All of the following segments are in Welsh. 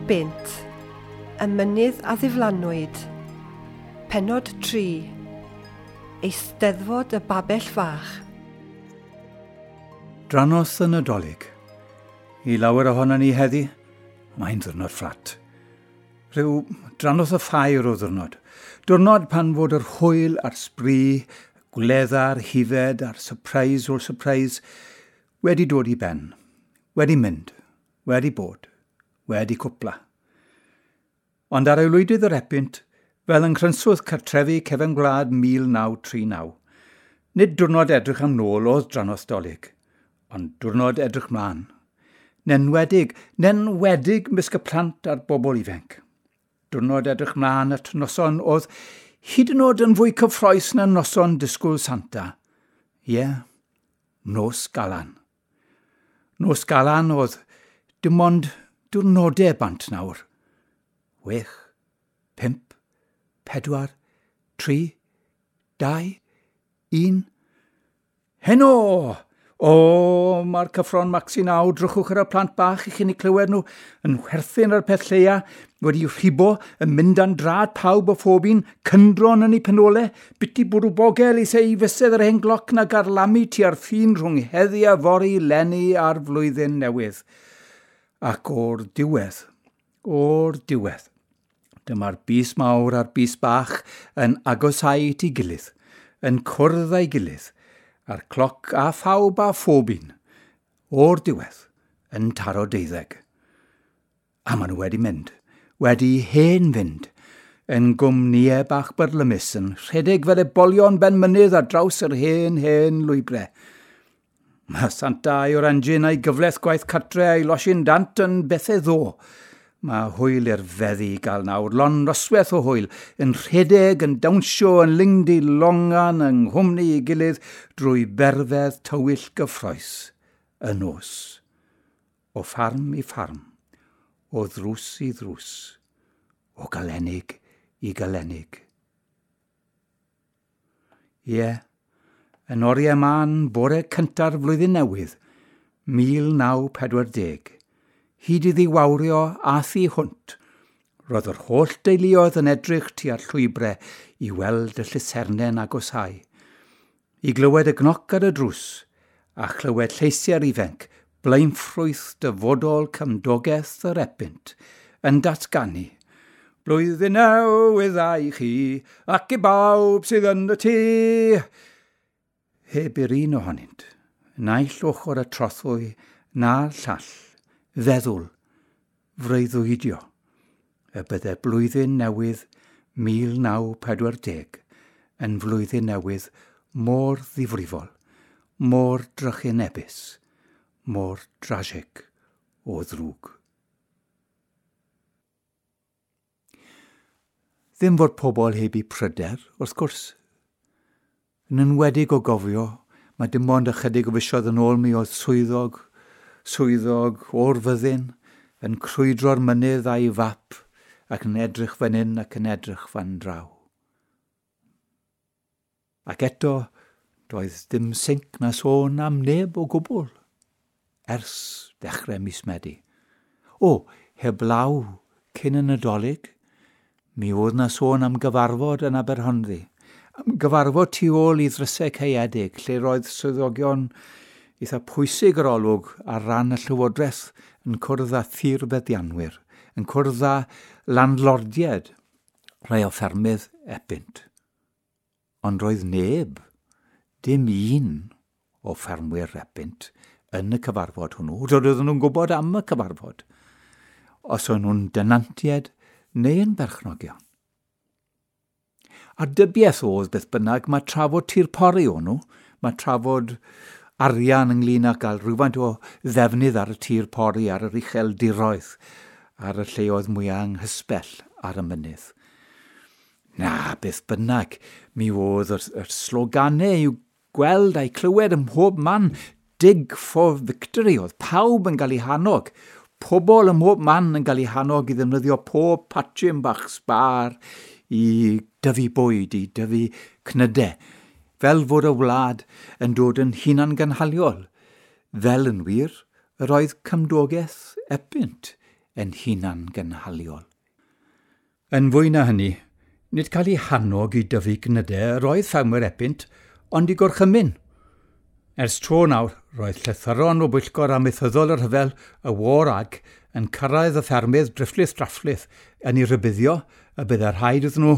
Epynt, y mynydd a ddiflanwyd. Pennod 3. Eisteddfod y Babell Fach. Drannoeth y Nadolig. I lawer ohonon ni heddi, mae'n ddiwrnod fflat. Rhyw drannoeth y ffair o ddiwrnod. Diwrnod pan fod yr hwyl a'r sbri, gwledda'r hifed a'r surprise o'r surprise wedi dod i ben, wedi mynd, wedi bod, wedi cwpla. Ond ar aelwydydd yr Epynt, fel yng nghrynswth cartrefi cefen gwlad 1939, nid diwrnod edrych am nôl oedd drannoeth Dolig, ond diwrnod edrych mlaen. Nenwedig, nenwedig mysg y plant a'r bobl ifanc. Diwrnod edrych mlaen at noson oedd hyd yn oed yn fwy cyffrous na noson disgwyl Santa. Ie, yeah, nos Galan. Nos Galan oedd dim ond diwrnodau bant nawr. 6, 5, 4, 3, 2, 1. Heno! O, mae'r cyffro'n maxi naw, drychwch ar y plant bach i chi'n eu clywed nhw, yn chwerthin ar y peth lleia, wedi rhibo, yn mynd an drad pawb o phob un, cyndron yn eu penole, biti bwrw bogel i sei fysedd yr hen gloc na garlamu tua'r ffin rhwng heddi a fory leni a'r flwyddyn newydd. Ac o'r diwedd, dyma'r bys mawr a'r bys bach yn agosau at ei gilydd, yn cwrdd â'i gilydd, a'r cloc a phawb a phob un, o'r diwedd, yn taro 12. A maen nhw wedi mynd, wedi hen fynd, yn gwmnïau bach byrlymus, yn rhedeg fel ebolion ben mynydd ar draws yr hen, hen lwybrau. Mae Santa a'i orangin a'i gyfleth gwaith cartre a'i losin dant yn bethau ddo. Mae hwyl i'r feddi i gael nawr, lon noswaith o hwyl, yn rhedeg, yn dawnsio, yn lingdi longan, yng nghwmni ei gilydd, drwy berfedd tywyll gyffrous, y nos. O ffarm i ffarm, o ddrws i ddrws, o galenig i galenig. Ie, yn oriau mân bore cynta'r flwyddyn newydd, 1940, hyd iddi wawrio a thu hwnt, roedd yr holl deuluoedd yn edrych tua'r llwybrau i weld y llusernau'n agosau, i glywed y gnoc ar y drws, a chlywed lleisiau'r ifanc, blaenffrwyth dyfodol cymdogaeth yr Epynt, yn datganu, Blwyddyn newydd dda i chi, ac i bawb sydd yn y tŷ. Heb i'r un ohonynt, naill ochr y trothwy na'r llall, feddwl, freuddwydio, y bydde blwyddyn newydd 1940 yn flwyddyn newydd mor ddifrifol, mor drychinebus, mor drasig o ddrwg. Ddim fod pobl heb eu pryder, wrth gwrs. Yn enwedig o gofio, mae dim ond ychydig o fisoedd yn ôl mi oedd swyddog o'r fyddin yn crwydro'r mynydd a'i fap ac yn edrych fan hyn ac yn edrych fan draw. Ac eto, doedd dim sinc na sôn am neb o gwbl ers dechrau mis Medi. O, heblaw cyn y Nadolig, mi oedd na sôn am gyfarfod yn Aberhonddu. Am gyfarfod tu ôl i ddrysau caeedig, lle roedd swyddogion eitha pwysig yr olwg ar ran y Llywodraeth yn cwrdd â thirfeddianwyr, yn cwrdd â landlordiaid, rhai o ffermydd Epynt. Ond roedd neb, dim un o ffermwyr Epynt yn y cyfarfod hwnnw. Roedden nhw'n gwybod am y cyfarfod, os o'n nhw'n denantiaid neu yn berchnogion. A dybiaeth oedd beth bynnag, mae trafod tir pori o'n nhw, mae trafod arian ynglyn â gael rhywfaint o ddefnydd ar y tir pori, ar yr ucheldiroedd, ar y lleoedd mwyaf anghysbell ar y mynydd. Na, beth bynnag, mi oedd yr sloganau i'w gweld a'i clywed ym mhob man, Dig for Victory, oedd pawb yn cael eu hannog. Pobl ym mhob man yn cael eu hannog i ddefnyddio pob patchyn bach sbar i dyfu bwyd, i dyfu cnydau, fel fod y wlad yn dod yn hunangynhaliol. Fel yn wir, yr oedd cymdogaeth Epynt yn hunan gynhaliol. Yn fwy na hynny, nid cael ei hannog i dyfu gnydau roedd ffermwyr Epynt, ond i gorchymyn. Ers tro nawr, roedd llythyron o bwyllgor amaethyddol y rhyfel, y War Ag, yn cyrraedd y ffermydd drifflith drafflith yn ei rybuddio y byddai rhaid iddyn nhw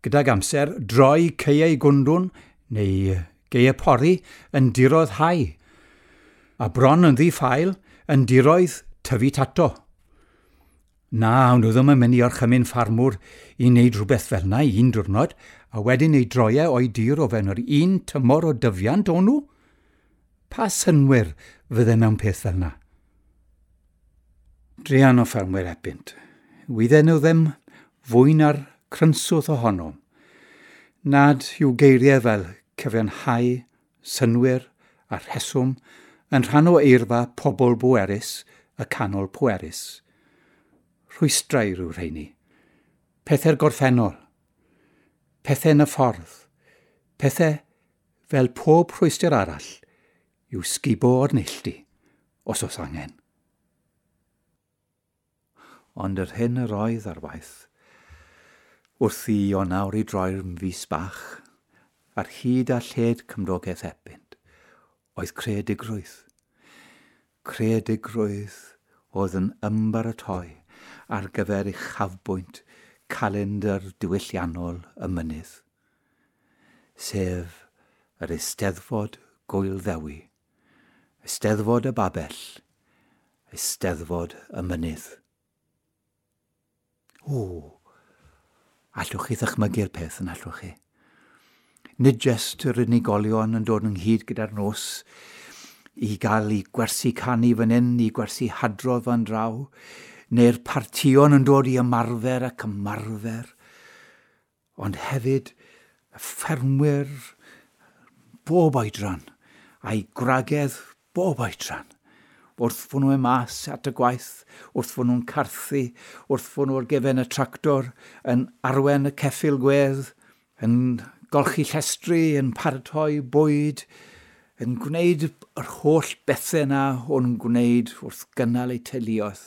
gydag amser droi caeau gwndwn neu geau pori yn diroedd hau, a bron yn ddi-ffael yn diroedd tyfu tato. Na, nhw ddim yn mynd i orchymyn ffarmwr i wneud rhywbeth fel yna un diwrnod, a wedyn ei droiau o'i dir o fewn yr un tymor o dyfiant o'n nhw. Pa synwyr fydde mewn peth fel yna? Druan o ffermwyr Epynt. Wydden nhw ddim fwy na'r crynswth ohonom. Nad yw geiriau fel cyfiawnhau, synwyr a rheswm yn rhan o eirfa pobl bwerus y canol pwerus. Rhwystrau rhyw rheini. Pethau'r gorffennol. Pethau yn y ffordd. Pethau fel pob rhwystr arall yw sgubo o'r neilltu, os oes angen. Ond yr hyn yr oedd ar waith, wrth i Ionawr i droi'r fus bach, ar hyd a lled cymdogaeth Epynt, oedd creadigrwydd. Creadigrwydd oedd yn ymbaratoi ar gyfer uchafbwynt calendr diwylliannol y mynydd, sef yr Eisteddfod Gŵyl Ddewi, Eisteddfod y Babell, Eisteddfod y Mynydd. O, allwch chi ddychmygu'r peth yn allwch chi? Nid jyst yr unigolion yn dod ynghyd gyda'r nos i gael eu gwersi canu fan hyn, i gwersi hadrodd fan draw, neu'r partïon yn dod i ymarfer ac ymarfer, ond hefyd y ffermwyr bob oedran a'i gwragedd bob oedran, wrth fod nhw'n mas at y gwaith, wrth fod nhw'n carthu, wrth fod nhw ar gefen y tractor, yn arwen y ceffyl gwedd, yn golchi llestri, yn paratoi bwyd, yn gwneud yr holl bethau yna o'n nhw'n gwneud wrth gynnal eu teuluoedd.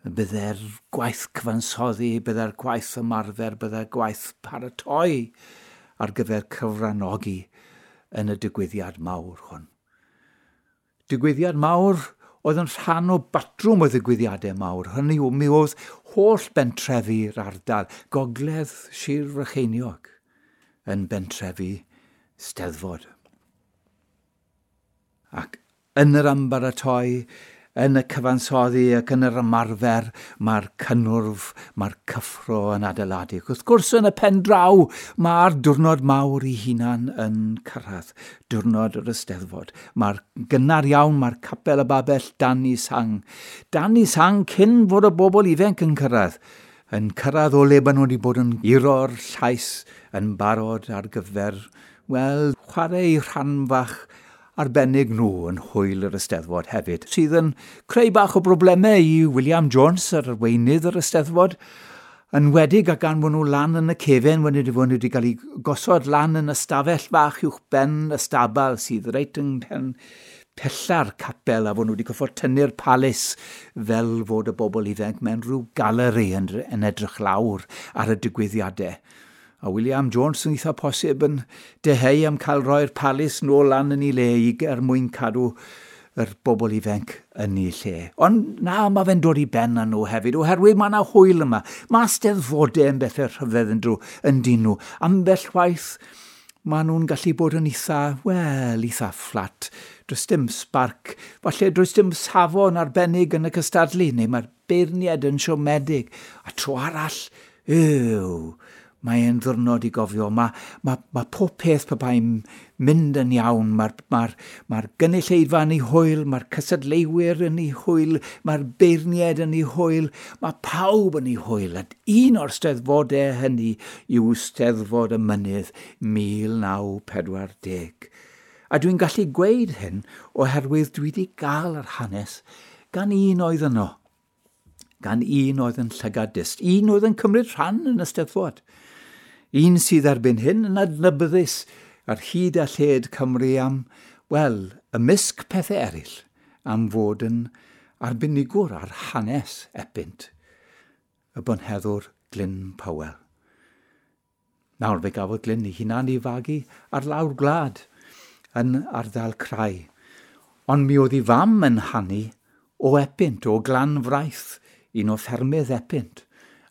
Bydde'r gwaith cyfansoddi, bydde'r gwaith ymarfer, bydde'r gwaith paratoi ar gyfer cyfranogi yn y digwyddiad mawr hwn. Digwyddiad mawr oedd yn rhan o batrwm o ddigwyddiadau mawr. Hynny yw, mi oedd holl bentrefi'r ardal, gogledd Sir Frycheiniog, yn bentrefi Steddfod. Ac yn yr ymbaratoi, yn y cyfansoddi ac yn yr ymarfer, mae'r cynnwrf, mae'r cyffro yn adeiladu. Wrth gwrs, yn y pen draw, mae'r diwrnod mawr ei hunan yn cyrraedd, diwrnod yr Eisteddfod. Mae'r gynnar iawn, mae'r capel y babell dan i sang. Dan i sang cyn fod y bobl ifanc yn cyrraedd. Yn cyrraedd o le maen nhw wedi bod yn guro'r llais yn barod ar gyfer, wel, chwarae eu rhan fach arbennig nhw yn hwyl yr Eisteddfod hefyd, sydd yn creu bach o broblemau i William Jones, yr arweinydd yr Eisteddfod, yn wedig a gan fod nhw lan yn y cefen, wedi fod nhw wedi cael eu gosod lan yn y stafell fach uwch ben y stabal sydd reit yng mhen pella'r capel, a fod nhw wedi gorfod tynnu'r palis fel fod y bobl ifanc mewn rhyw galeri yn edrych lawr ar y digwyddiadau. A William Jones yn eitha posib yn deheu am cael roi'r palis nôl lan yn ei le i er mwyn cadw yr bobl ifanc yn ei lle. Ond na, mae fe'n dod i ben â nhw hefyd, oherwydd mae yna hwyl yma. Mae steddfodau yn bethau rhyfedd yn drw, yn dyn nhw. Ambell waith, maen nhw'n gallu bod yn eitha, wel, eitha fflat. Does dim spark, falle does dim safon arbennig yn y cystadlu, neu mae'r beirniad yn siomedig. A tro arall, yw, mae'n ddiwrnod i gofio. Mae pob peth pe bai'n mynd yn iawn. Mae'r gynulleidfa yn ei hwyl, mae'r cystadleuwyr yn ei hwyl, mae'r beirniaid yn ei hwyl, mae pawb yn ei hwyl. A un o'r steddfodau hynny yw Steddfod y Mynydd 1940. A dwi'n gallu gweud hyn oherwydd dwi wedi gael yr hanes gan un oedd yno. Gan un oedd yn llygad dyst, un oedd yn cymryd rhan yn y Steddfod. Un sydd erbyn hyn yn adnabyddus ar hyd a lled Cymru am, wel, ymysg pethau eraill, am fod yn arbenigwr ar hanes Epynt, y bonheddwr Glyn Powell. Nawr fe gafodd Glyn ei hunan ei fagu ar lawr gwlad yn ardal Crai. Ond mi oedd ei fam yn hanu o Epynt, o Glanfraith, un o ffermydd Epynt.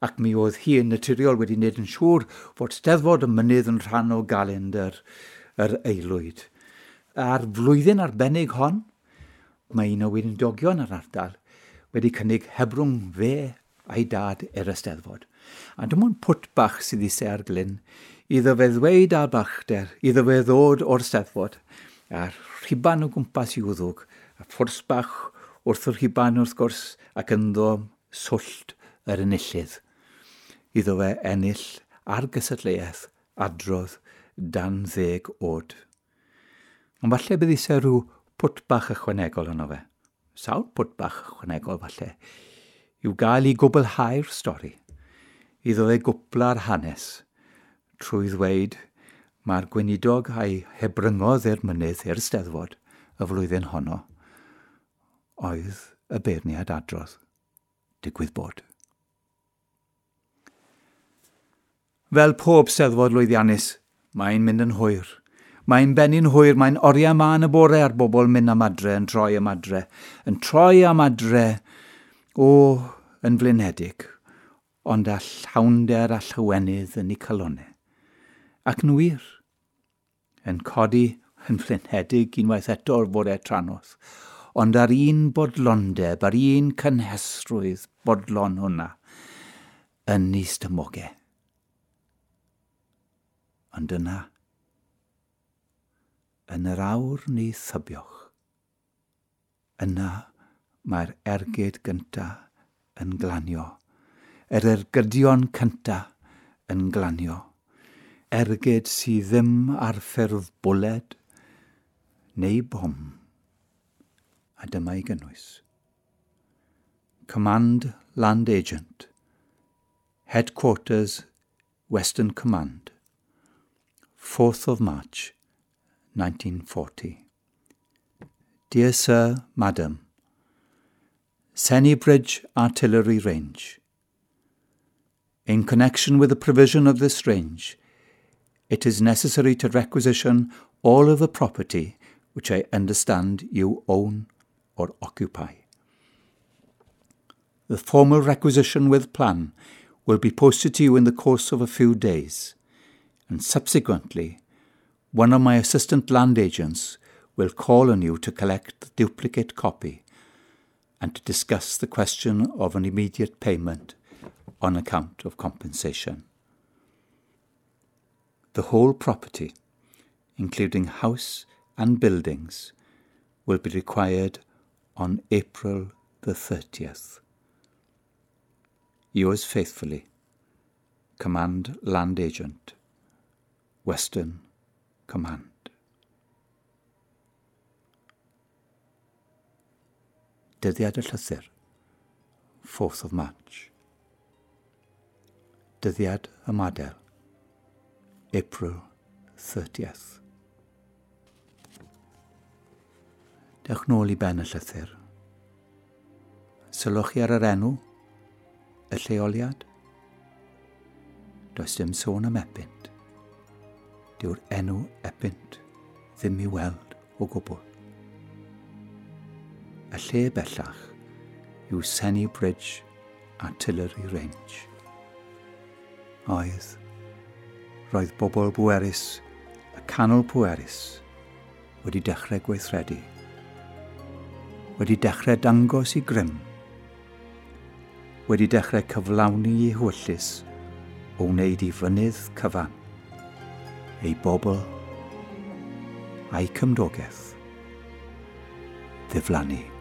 Ac mi oedd hi yn naturiol wedi wneud yn siŵr fod Steddfod y Mynydd yn rhan o galendr yr aelwyd. A'r flwyddyn arbennig hon, mae un o weinidogion yr ardal wedi cynnig hebrwng fe a'i dad i'r Eisteddfod. A dim ond pwt bach sydd eisiau ar Glyn, iddo fe ddweud ar balchder, iddo fe ddod o'r Steddfod, a'r rhuban o gwmpas i'w wddwg, a phwrs bach wrth y rhuban wrth gwrs, ac ynddo swllt yr enillydd. Iddo fe ennill ar gystadleuaeth adrodd dan 10 oed. Ond falle bydd eisiau rhyw pwt bach ychwanegol yno fe. Sawl pwt bach ychwanegol falle. I'w gael i gwblhau'r stori. Iddo fe gwpla'r hanes trwy ddweud mae'r gweinidog a'i hebryngodd i'r mynydd i'r Steddfod y flwyddyn honno oedd y beirniad adrodd. Digwydd bod. Fel pob Steddfod lwyddiannus, mae'n mynd yn hwyr. Mae'n bennu'n hwyr, mae'n oriau mân y bore a'r bobl mynd am adre, yn troi am adre, yn troi am adre, o, yn flinedig, ond â llawnder a llawenydd yn eu calonnau. Ac yn wir, yn codi yn flinedig unwaith eto'r bore trannoeth, ond ar un bodlondeb, ar un cynhesrwydd bodlon hwnna, yn ei stumogau. Ond yna, yn yr awr ni thybioch, yna mae'r ergyd gyntaf yn glanio. Yr ergydion cyntaf yn glanio. Ergyd sydd ddim ar ffurf bwled neu bom. A dyma ei gynnwys. Command Land Agent. Headquarters, Western Command. 4th of March, 1940. Dear Sir, Madam, Sennybridge Artillery Range. In connection with the provision of this range, it is necessary to requisition all of the property which I understand you own or occupy. The formal requisition with plan will be posted to you in the course of a few days, and subsequently, one of my assistant land agents will call on you to collect the duplicate copy and to discuss the question of an immediate payment on account of compensation. The whole property, including house and buildings, will be required on April the 30th. Yours faithfully, Command Land Agent, Western Command. Dyddiad y llythyr, 4th of March. Dyddiad ymadael, April 30th. Dewch nôl i ben y llythyr. Sylwch chi ar yr enw, y lleoliad. Does dim sôn am Epynt. Dyw'r enw Epynt ddim i weld o gwbl. Y lle bellach yw Sennybridge Artillery Range. Oedd, roedd bobl bwerus, y canol pwerus, wedi dechrau gweithredu. Wedi dechrau dangos i grym. Wedi dechrau cyflawni i hewyllys o wneud i fynydd cyfan, ei bobl a'i cymdogaeth ddiflannu.